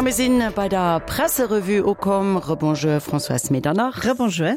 A mir sinn bei der Presserevue ukomm. Rebonjour Françoise Medernach. Rebonjour.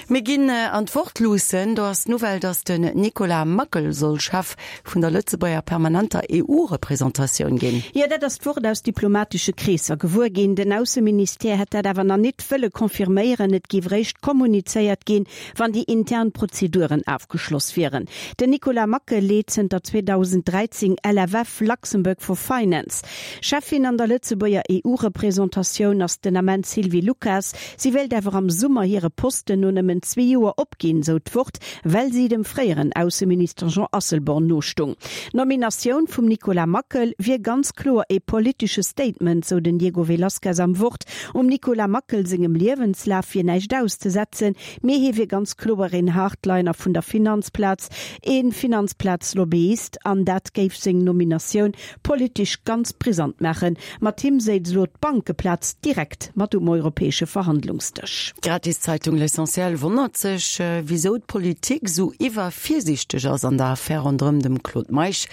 Mir ginn an d'Wort luussen. Do ass d'Nouvelle, datt den Nicolas Mackel soll Chef vun der Lëtzebuerger permanenter EU-Representatioun ginn. Jo, dat ass d'Wort aus diplomatesche Kreesser gewuer ginn. Den Ausseministère hätt dat awer nach nit wëlle confirméieren. Et géif eréischt kommunizéiert ginn, wann déi intern Prozeduren afgeschloss wieren. Den Nicolas Mackel leet zënter 2013 LFF, Luxembourg for Finance. Cheffin an der Lëtzebuerger EU-Representatioun ass den Ament d'Sylvie Lucas. Si wéilt awer am Summer hire Posten no nëmmen zwee Joer opginn, sou d'Wort, well si dem fréieren Ausseminister Jean Asselborn nostung. D'Nominatioun vum Nicolas Mackel wier ganz kloer ee politesche Statement, sou den Diego Velazquez am Wort. Um Nicolas Mackel sengem Liewenslaf wier näischt auszesetzen, mee hie wier ganz kloer een Hardliner vun der Finanzplaz, ee Finanzplaz-Lobbyist an dat géif seng Nominatioun politesch ganz brisant maachen. Mat him séiz elo d'Bankeplaz direkt mat um europäesche Verhandlungsdësch. D'Gratiszeitung L'Essentiel wonnert sech, wisou d'Politik esou iwwervirsiichteg ass an der Affär ronderëm dem Claude Meisch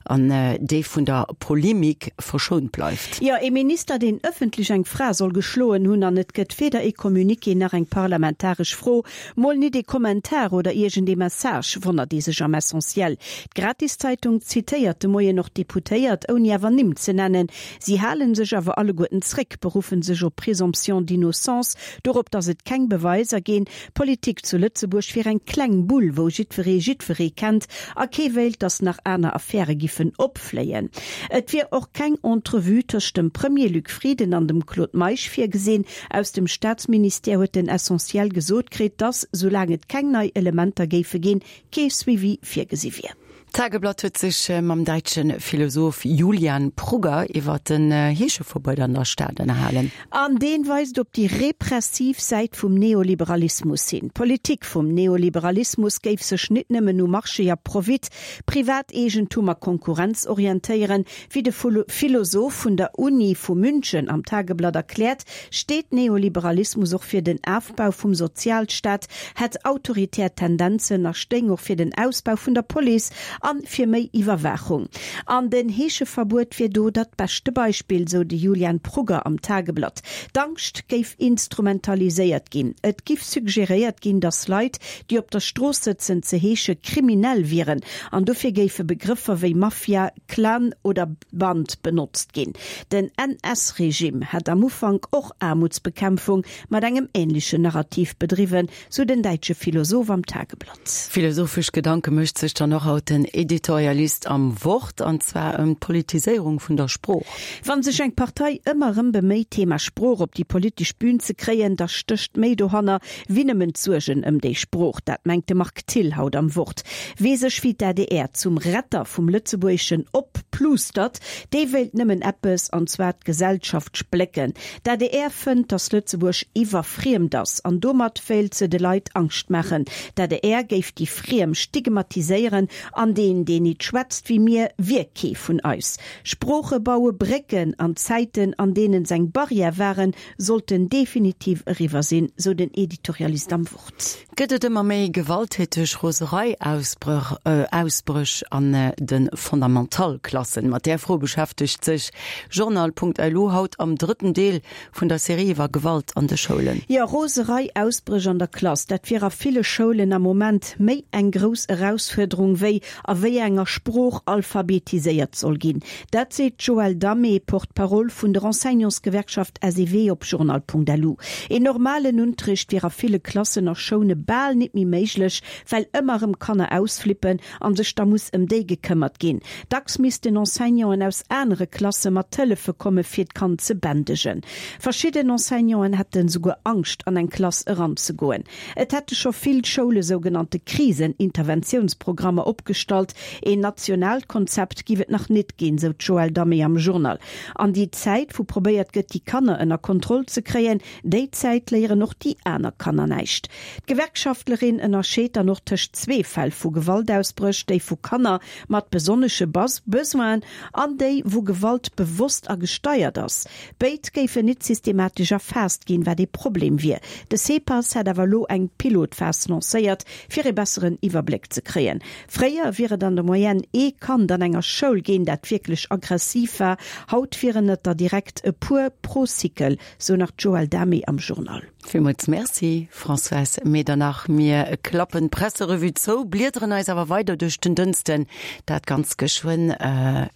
an dee vun der Polemik verschount bleift. Jo, ee Minister, deen ëffentlech eng Fra soll geschloen hunn an et gëtt weder ee Communiqué nach eng parlamentaresch Fro, Mol nit ee Kommentar oder iergend ee Message, wonnert ee sech am Essentiel. D'Gratiszeitung zitéiert de Moien och Deputéiert, ouni awer Nimm ze nennen. Si hale sech awer alleguerten zréck, beruffe sech op Présomption d'innocence, dorop, datt et keng Beweiser ginn. D'Politik zu Lëtzebuerg wier eng kleng Bull, wou jiddweree jiddweree kennt a kee wéilt, datt nach aner Affäre giffen opfléien. Et wier och keng Entrevue tëscht dem Premier Luc Frieden an dem Claude Meisch virgesinn. Aus dem Staatsministère huet den Essentiel gesot kritt, datt, soulaang et keng nei Elementer géife ginn, kee Suivi virgesi wier. D'Tageblatt huet sech mam däitsche Philosoph Julian Prugger iwwer den Heescheverbuet an der Stad ënnerhalen. An deen weist op déi repressiv Säit vum Neoliberalismus hin. D'Politik vum Neoliberalismus géif sech nit nëmmen u Marché a Profit, Privateegentum a Konkurrenz orientéieren, Wéi de Philosoph vun der Uni vu München am Tageblatt erkläert, steet Neoliberalismus och fir den Afbau vum Sozialstaat, hätt autoritär Tendenzen a stéing och fir den Ausbau vun der Police an fir méi Iwwerwaachung. An den Heescheverbuet wier do dat beschte Beispill, sou de Julian Prugger am Tageblatt. D'Angscht géif instrumentaliséiert ginn. Et giff suggeréiert ginn, datt Leit, déi op der Strooss sëtzen, ze heesche kriminell wieren an dofir géife Begrëffer wéi Mafia, Clan oder Band benotzt ginn. Den NS-Regime hat am Ufank och Aarmutsbekämpfung mat engem änlechen Narrativ bedriwwen, sou den däitsche Philosoph am Tageblatt. Philosophesch Gedanke mécht sech dann och haut den Editorialist am Wort, an zwar ëm d'Politiséierung vun der Sprooch. Wann sech eng Partei ëmmer erëm beméit, d'Thema Sprooch op déi politesch Bühn ze kréien, da stécht méi dohanner, wéi nëmmen d'Suergen ëm déi Sprooch. Dat mengt de Marc Thill haut am Wort. Wee sech wéi d'ADR zum Retter vum Lëtzebuergeschen opplustert, dee wéilt nëmmen eppes, an zwar d'Gesellschaft splécken. D'ADR fënnt, datt Lëtzebuerg iwwerfriemt ass, an domat wéilt se de Leit Angscht maachen. D'ADR géif déi Friem stigmatiséieren, an deen, deen nit schwätzt wéi mir, wier kee vun eis. Sprooche baue Brécken, an Zäiten, an deenen s'eng Barrière waren, sollten definitiv eriwwer sinn, sou den Editorialist am Wort. Gëtt et ëmmer méi gewalttäteg Roserei-Ausbréch an de Fondamental-Klassen? Mat där Fro beschäftegt sech Journal.lu haut am drëtten Deel vun der Serie iwwer Gewalt an de Schoulen. Jo, Roserei-Ausbréch an der Klass, dat wier a ville Schoulen am Moment méi eng grouss Erausfuerderung wéi a wéi enger Sprooch alphabetiséiert soll ginn. Dat seet d'Joëlle Damé, Porte-parole vun der Enseignantsgewerkschaft SEW op Journal.lu. Een normalen Unterricht wier a ville Klassen a Schoune bal nit méi méiglech, well ëmmer erëm Kanner ausflippen an sech da muss ëm déi gekëmmert ginn. Dacks missten Enseignanten aus anere Klasse mat hëllefe komme fir d'Kand ze bändegen. Verschidden Enseignanten hätte souguer Angscht an eng Klass eranzegoen. Et hätte scho vill Schoule sougenannte Krisen-Interventiounsprogrammer opgestallt. Een nationaalt Konzept giff et nach nit ginn, sou d'Joëlle Damé am Journal. An déi Zäit, wou probéiert gëtt, déi Kanner ënner Kontroll ze kréien, déi Zäit léieren och déi aner Kanner näischt. D'Gewerkschaftlerin ënnerscheet dann och tëscht zwee Fäll vu Gewaltausbréch, déi vu Kanner mat besonnesche Besoinen an déi, wou Gewalt bewosst a gesteiert ass. Béid géifen nit systematesch erfaasst ginn, wat ee Problem wier. De CEPAS hätt awer elo eng Pilotphas lancéiert, fir ee besseren Iwwerbléck ze kréien. Fréier wier. wier et an der Moyenne ee Kand an enger Schoul ginn, dat wierklech aggressiv war. Haut wieren et der direkt e puer pro Cycle, sou nach d'Joëlle Damé am Journal. Villmools Merci, Françoise Medernach. Mir klappen d'Presserevue zou, bliederen eis awer weider duerch den Dënsten, dat ganz geschwënn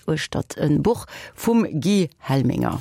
uechtert e Buch vum Guy Helminger.